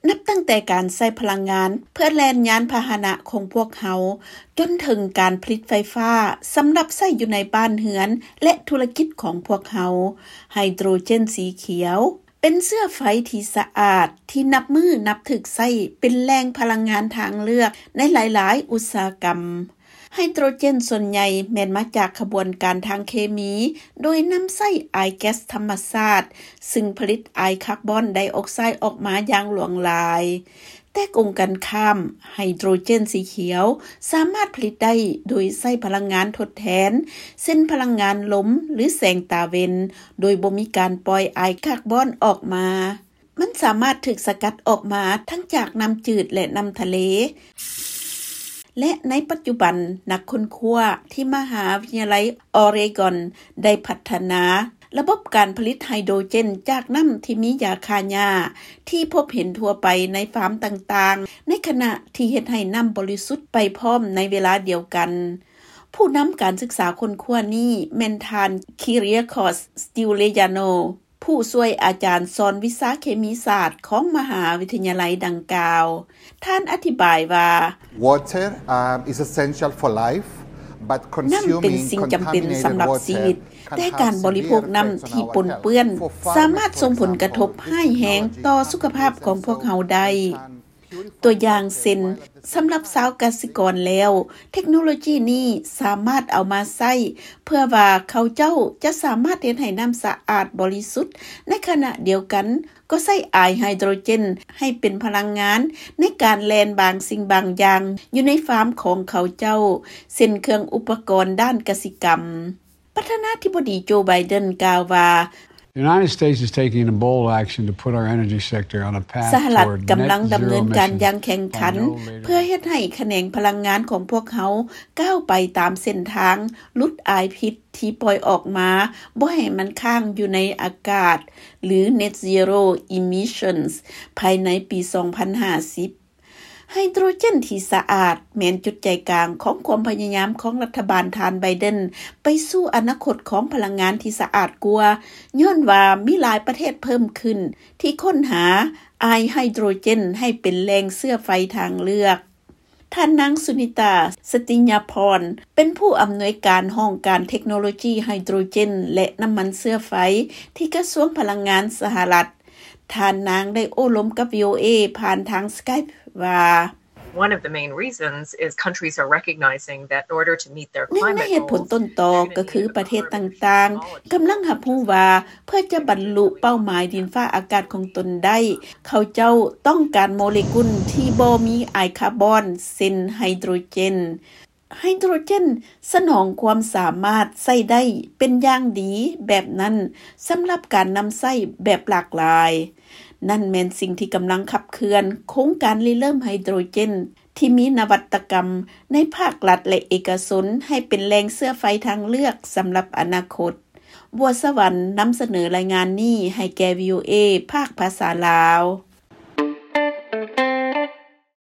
ນັບຕັ້ງແຕ່ການໃຊ້ພະລັງງານເພື່ອແລ່ນຍານພາຫະນະຂອງພວກເຮົາ ຈົນເຖິງການຜະລິດໄຟຟ້າສຳລັບໃຊ້ຢູ່ໃນບ້ານເຮືອນ ແລະ ທຸລະກິດຂອງພວກເຮົາ. ໄຮໂດຣເຈນສີຂຽວ ເປັນເຊື້ອໄຟທີ່ສະອາດ ທີ່ນັບມື້ນັບຖືກໃຊ້ເປັນແຫຼ່ງພະລັງງານທາງເລືອກໃນຫຼາຍໆອຸດສາຫະກຳ. ໄຮໂດຣເຈນສ່ວນໃຫຍ່ແມ່ນມາຈາກຂະບວນການທາງເຄມີ ໂດຍນຳໃຊ້ອາຍແກັສທຳມະຊາດ ຊຶ່ງຜະລິດອາຍຄາບອນໄດອອກໄຊອອກມາຢ່າງຫຼວງຫຼາຍ. ແຕ່ກົງກັນຂ້າມ, ໄຮໂດຣເຈນສີຂຽວສາມາດຜະລິດໄດ້ໂດຍໃຊ້ພະລັງງານທົດແທນ ເຊັ່ນ ພະລັງງານລົມ ຫຼື ແສງຕາເວັນ, ໂດຍບໍ່ມີການປ່ອຍອາຍຄາບອນອອກມາ. ມັນສາມາດຖືກສະກັດອອກມາທັງຈາກນ້ຳຈືດ ແລະ ນ້ຳທະເລ. ແລະ ໃນປັດຈຸບັນ, ນັກຄົ້ນຄວ້າທີ່ມະຫາວິທະຍາໄລອອເຣກອນໄດ້ພັດທະນາລະບົບການຜະລິດໄຮໂດຣເຈນຈາກນ້ຳທີ່ມີຢາຂ້າຫຍ້າ ທີ່ພົບເຫັນທົ່ວໄປໃນຟາມຕ່າງໆ, ໃນຂະນະທີ່ເຮັດໃຫ້ນ້ຳບໍລິສຸດໄປພ້ອມໃນເວລາດຽວກັນ. ຜູ້ນຳການສຶກສາຄົ້ນຄວ້ານີ້ແມ່ນທ່ານ Kyriacos Stylianou ຜູ້ຊ່ວຍອາຈານສອນວິຊາເຄມີສາດຂອງມະຫາວິທະຍາໄລດັ່ງກ່າວ. ທ່ານອະທິບາຍວ່າ, Water, um, is essential for life, but ນ້ຳເປັນສິ່ງຈຳເປັນສຳລັບຊີວິດ, ແຕ່ການບໍລິໂພກນ້ຳທີ່ປົນເປື້ອນສາມາດສົ່ງຜົນກະທົບຮ້າຍແຮງຕໍ່ສຸຂະພາບຂອງພວກເຮົາໄດ້. ຕົວຢ່າງເຊັ່ນ, ສຳລັບຊາວກະສິກອນແລ້ວ, ເທັກໂນໂລຈີນີ້ສາມາດເອົາມາໃຊ້ເພື່ອວ່າເຂົາເຈົ້າຈະສາມາດເຮັດໃຫ້ນ້ຳສະອາດບໍລິສຸດ, ໃນຂະນະດຽວກັນກໍໃຊ້ອາຍໄຮໂດຣເຈນໃຫ້ເປັນພະລັງງານໃນການແລ່ນບາງສິ່ງບາງຢ່າງຢູ່ໃນຟາມຂອງເຂົາເຈົ້າ, ເຊັ່ນ ເຄື່ອງອຸປະກອນດ້ານກະສິກຳ. ປະທານາທິບໍດີໂຈ ໄບເດັນ ກ່າວວ່າ, The United States is taking a bold action to put our energy sector on a path ສະຫະລັດ toward ກຳລັງ net ດຳເນີນການ zero emissions ຢ່າງແຂງຂັນ by no later ເພື່ອເຮັດໃຫ້ຂະແໜງພະລັງງານຂອງພວກເຮົາກ້າວໄປຕາມເສັ້ນທາງຫຼຸດອາຍພິດທີ່ປ່ອຍອອກມາ, ບໍ່ໃຫ້ມັນຄ້າງຢູ່ໃນອາກາດ ຫຼື net zero emissions ພາຍໃນປີສອງພັນຫ້າສິບ. ໄຮໂດຣເຈນທີ່ສະອາດແມ່ນຈຸດໃຈກາງຂອງຄວາມພະຍາຍາມຂອງລັດຖະບານທ່ານໄບເດັນໄປສູ່ອະນາຄົດຂອງພະລັງງານທີ່ສະອາດກວ່າ, ຍ້ອນວ່າມີຫຼາຍປະເທດເພີ່ມຂຶ້ນທີ່ຄົ້ນຫາອາຍໄຮໂດຣເຈນໃຫ້ເປັນແຫຼ່ງເຊື້ອໄຟທາງເລືອກ. ທ່ານນາງ ສຸນິຕາ ສະຕິຍາພອນ ເປັນຜູ້ອຳນວຍການຫ້ອງການເທັກໂນໂລຈີໄຮໂດຣເຈນ ແລະ ນ້ຳມັນເຊື້ອໄຟ ທີ່ກະຊວງພະລັງງານສະຫະລັດ. ທ່ານນາງໄດ້ໂອ້ລົມກັບ ວີໂອເອ ຜ່ານທາງ Skype ວ່າ, One of the main reasons is countries are recognizing that in order to meet their climate goals, ໜຶ່ງໃນເຫດຜົນຕົ້ນຕໍກໍຄືປະເທດຕ່າງໆກຳລັງຮັບຮູ້ວ່າ ເພື່ອຈະບັນລຸເປົ້າໝາຍດິນຟ້າອາກາດຂອງຕົນໄດ້, ເຂົາເຈົ້າຕ້ອງການໂມເລກຸນທີ່ບໍ່ມີອາຍຄາບອນ ເຊັ່ນ ໄຮໂດຣເຈນ. ໄຮໂດຣເຈນສະໜອງຄວາມສາມາດໃຊ້ໄດ້ເປັນຢ່າງດີແບບນັ້ນສຳລັບການນຳໃຊ້ແບບຫຼາກຫຼາຍ. ນັ້ນແມ່ນສິ່ງທີ່ກຳລັງຂັບເຄື່ອນໂຄງການລິເລີ່ມໄຮໂດຣເຈນທີ່ມີນະວັດຕະກຳໃນພາກລັດ ແລະ ເອກະຊົນໃຫ້ເປັນແຫຼ່ງເຊື້ອໄຟທາງເລືອກສຳລັບອະນາຄົດ. ບົວສະຫວັນນຳສະເໜີລາຍງານນີ້ໃຫ້ແກ່ ວີໂອເອ ພາກພາສາລາວ.